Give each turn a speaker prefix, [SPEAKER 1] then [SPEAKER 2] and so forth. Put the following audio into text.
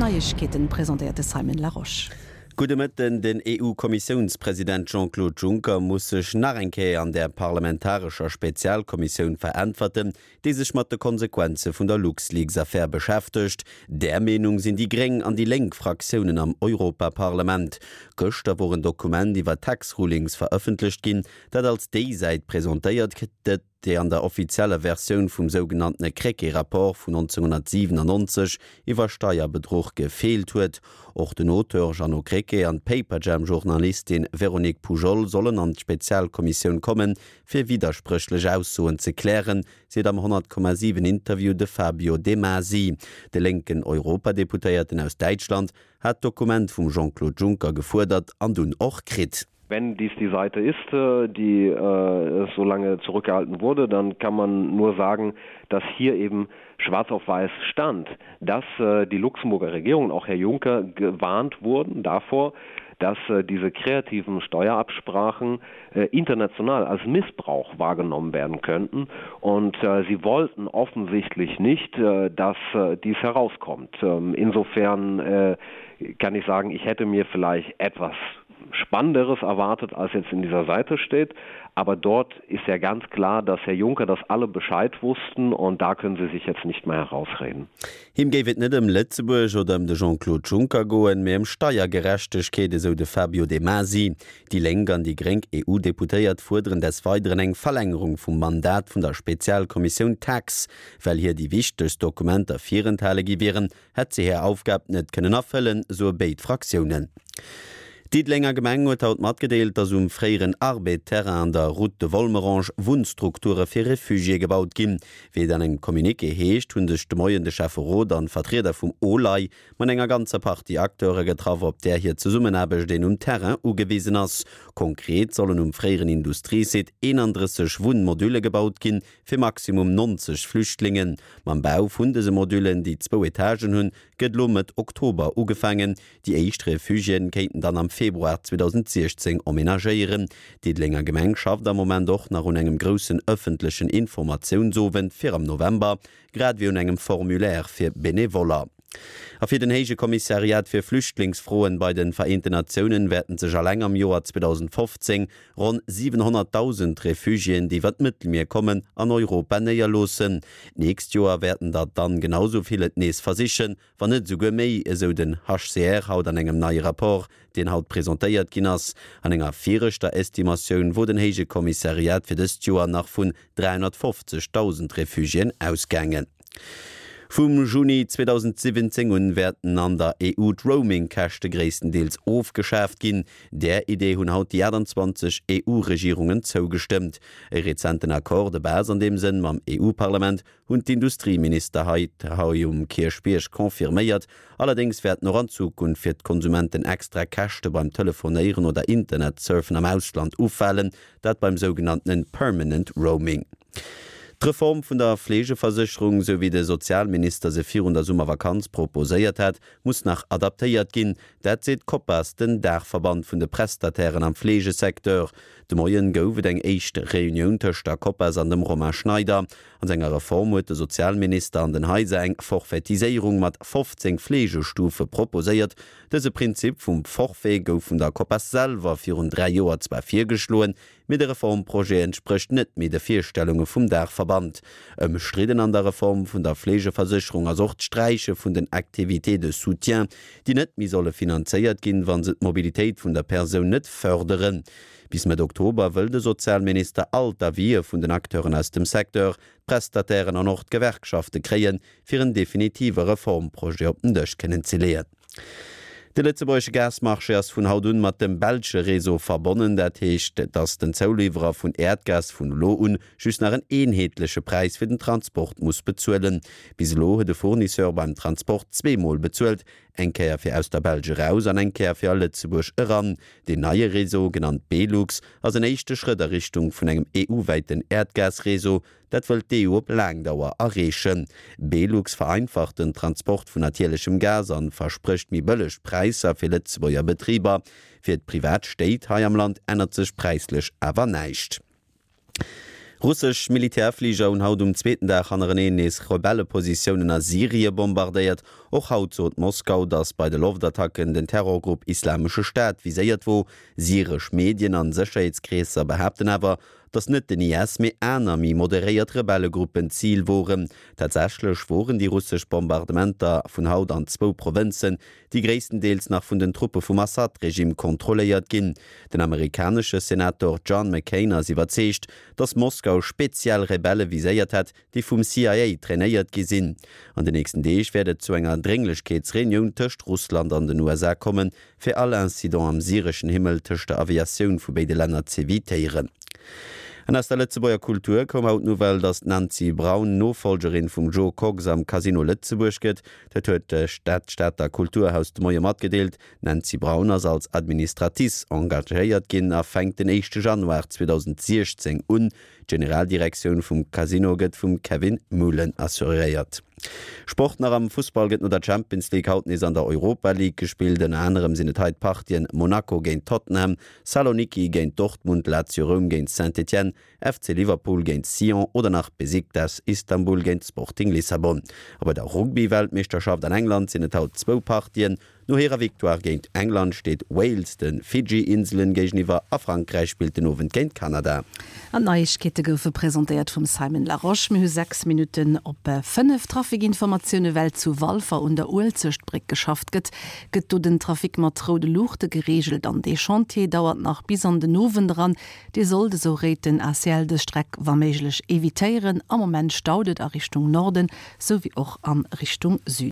[SPEAKER 1] Neiegkeeten presentéiert de Simon Larosche.
[SPEAKER 2] Gudde Mëtten, Den EU-Kommissiounspresident Jean-Claude Juncker muss sech nach eng Kéier an der parlamentarescher Spezialkommissioun veräntwerten, déi sech mat de Konsequenze vun der LuxLeaks-Affär beschäftegt. Där Meenung sinn déi gréng an déi lénk Fraktiounen am Europaparlament. Gëschter wor en Dokument iwwer Tax Rulings verëffentlecht ginn, dat als déi Säit presentéiert gëtt, déi an der offizieller Versioun vum sougenanntene Krecké-Rapport vun 1997 iwwer Steierbedruch gefeelt huet. Och den Auteur Jeannot Krecké an d'Paperjam-Journalistin Véronique Poujol sollen an d'Spezialkommissioun kommen, fir widderspréchlech Aussoen ze klären, seet am 100,7 Interview de Fabio De Masi. De lénken Europadeputéierten aus Däitschland hat d'Dokument vum Jean-Claude Juncker gefuerdert an dunn och kritt.
[SPEAKER 3] Wenn dies die Seite ist, die so lange zurückgehalten wurde, dann kann man nur sagen, dass hier eben schwarz auf weiß stand, dass die Luxemburger Regierung und auch Herr Juncker gewarnt wurden davor, dass diese kreativen Steuerabsprachen international als Missbrauch wahrgenommen werden könnten. Und sie wollten offensichtlich nicht, dass dies herauskommt. Insofern kann ich sagen, ich hätte mir vielleicht etwas Spannenderes erwartet, als jetzt in dieser Seite steht. Aber dort ist ja ganz klar, dass Herr Juncker das alle Bescheid wussten und da können sie sich jetzt nicht mehr herausreden.
[SPEAKER 2] Him géif et net ëm Lëtzebuerg oder ëm de Jean-Claude Juncker goen, mee ëm Steiergerechtegkeet, esou de Fabio De Masi. Déi Lénk an déi Gréng EU-Deputéiert fuerderen des Weideren eng Verlängerung vum Mandat vun der Spezialkommissioun Tax. Well hir déi wichtegst Dokumenter virenthale gi wieren, hätt se hir Aufgab net kënnen erfëllen, soe béid Fraktiounen. D'Diddelenger Gemeng huet haut matgedeelt, datt um fréieren Arbed-Terrain an der Route de Volmerange Wunnstrukture fir Refugiéë gebaut ginn. Wéi et an engem Communiqué heescht, hu sech de Moien de Schäfferot an d'Vertrieder vum OLAI mat enger ganzer Partie Acteure getraff, op där hir Zesummenaarbecht een um Terrain ugewisen ass. Konkret sollen um fréieren Industriesite 31 Wunnmodülle gebaut ginn, fir maximum 90 Flüchtlingen. Mam Bau vun dëse Modüllen, déi zwou Etagen hunn, gëtt elo Mëtt Oktober ugefaangen. Déi éischt Refugiéen kéinten dann am Februar 2016 emmenagéieren. D'Diddelenger Gemeng schafft am Moment och nach un engem groussen ëffentlechen Informatiounsowend fir am November, grad ewéi un engem Formulaire fir Benevoller. A fir den Héije Kommissariat fir Flüchtlingsfroen bei de Vereenten Natiounen wäerten sech alleng am Joer 2015 Ronn 700.000 Refugiéen, déi iwwer d'Mëttelmier kommen, an Europa néierloossen. D'nächst Joer wäerten der dann genau sou vill et nees versichen, wann net esouguer méi, esou den HCR haut an engem neie Rapport, deen haut presentéiert ginn ass. An enger viregter Estimatioun wor den Héije Kommissariat fir dëst Joer nach vun 350.000 Refugiéen ausgaangen. Vum Juni 2017 un wäerten an der EU d'Roaming-Käschte gréisstendeels ofgeschaaft ginn. Där Idee hunn haut déi 28 EU-Regierungen zougestëmmt. E rezenten Accord de base an deem Sënn mam EU-Parlament hunn d'Industrieminister hei um Kierchbierg confirméiert. Allerdéngs wäerten och an Zukunft fir d'Konsumenten extra Käschte beim Telefonéieren oder Internetsurfen am Ausland ufalen, dat beim sougenanntenen Permanent Roaming. D'Reform vun der Fleegeversécherung, sou wéi de Sozialminister se virun der Summervakanz proposéiert hat, muss nach adaptéiert ginn. Dat seet d'Copas, den Daachverband vun de Prestatairen am Fleegesecteur. De Moien gouf et eng éischt Reunioun tëscht der Copas an dem Romain Schneider. An senger Reform huet de Sozialminister an den Haiser eng Forfaitiséierung mat 15 Fleegestufe proposéiert. Dëse Prinzip vum Forfait gouf vun der Copas selwer virun 3 Joer zwar virgeschloen, Mee de Reformprojet entsprécht net méi de Virstellunge vum Daachverband. Ëmstridden an der Reform vun der Fleegeversécherung ass och d'Sträiche vun den Activités de soutien, déi net méi solle finanzéiert ginn, wa se d'Mobilitéit vun der Persoun net fërderen. Bis Mëtt Oktober wëll de Sozialminister all d'Avisë vun den Acteuren aus dem Secteur, d'Prestatairen an och d'Gewerkschafte kréien, fir en definitive Reformprojet op den Dësch kënnen ze leeën. De lëtzebuergesche Gasmarché ass vun haut un mat dem belsche Réseau verbonnen. Dat heescht, datt den Zouliwwerer vun Äerdgas vun elo un just nach en eenheetleche Präis fir den Transport muss bezuelen. Bis elo huet e Fournisseur beim Transport zweemol bezuelt, eng Kéier fir aus der Belsch eraus an eng Kéier fir a Lëtzebuerg eran. Deen neie Réseau, genannt Belux, ass en éischte Schrëtt a Richtung vun engem EU-wäiten Äerdgasréseau, Dat wëllt d'EU op laang Dauer erreechen. Belux vereinfacht den Transport vun natierlechem Gas an versprécht méi bëlleg Präisser fir Lëtzebuerger Betriber. Fir d'privat Stéit hei am Land ännert sech präislech awer näischt. Russesch Militärfliger hunn haut um zweeten Dag hannereneen nees Rebellepositiounen a Syrie bombardéiert. Och haut sot Moskau, datt bei de Loftattacken den Terrorgrupp Islamesche Staat viséiert wor. Syresch Medien an Sécherheetskreesser behaapten awer, datt net den IS, mee aner méi moderéiert Rebellegruppen d'Zil woren. Tatsächlech woren déi russesch Bombardementer vun haut an zwou Provënzen, déi gréisstendeels nach vun den Truppe vum Assad-Regime kontrolléiert ginn. Den amerikanesche Senator John McCain ass iwwerzeegt, datt Moskau speziell Rebelle viséiert hätt, déi vum CIA trainéiert gi sinn. An den nächsten Deeg wäert et zu enger Drénglechkeetsreunioun tëscht Russland an den USA kommen, fir all Incident am syreschen Himmel tëscht der Aviatioun vu béide Länner z'evitéieren. An aus der Lëtzebuerger Kultur koum haut d'Nouvelle, datt d'Nancy Braun Nofollgerin vum Jo Kox am Casino Lëtzebuerg gëtt. Dat huet d'Stater Kulturhaus de Moie matgedeelt. D'Nancy Braun ass als Administratrice engagéiert ginn a fänkt den éischte Januar 2016 un. D'Generaldirektioun vum Casino gëtt vum Kevin Muhlen assuréiert. Sport nach, Am Fussball gëtt no der Champions League haut nees an der Europa League gespillt. Ënner anerem sinn et hei d'Partien Monaco géint Tottenham, Saloniki géint Dortmund, Lazio Roum géint Saint-Étienne, FC Liverpool géint Sion oder nach Besiktas Istanbul géint Sporting Lissabon. A bei der Rugby-Weltmeeschterschaft an England sinn et haut zwou Partien. No hirer Victoire géint England steet Wales de Fidschi-Inselen géigeniwwer a Frankräich spillt den Owend géint Kanada.
[SPEAKER 1] An d'Neiegkeete goufe presentéiert vum Simon Larosche. Mir hu 6 Minutten op 5. Trafikinformatioune Well zu Walfer un der Uelzechtbréck geschafft gëtt, gëtt do den Trafic mat roude Luuchte gereegelt an dee Chantier dauert nach bis an den Owend eran. Dir sollt, esou réit den ACL, dës Streck wa méiglech evitéieren. Am Moment staut et a Richtung Norden, sou wéi och a Richtung Süden.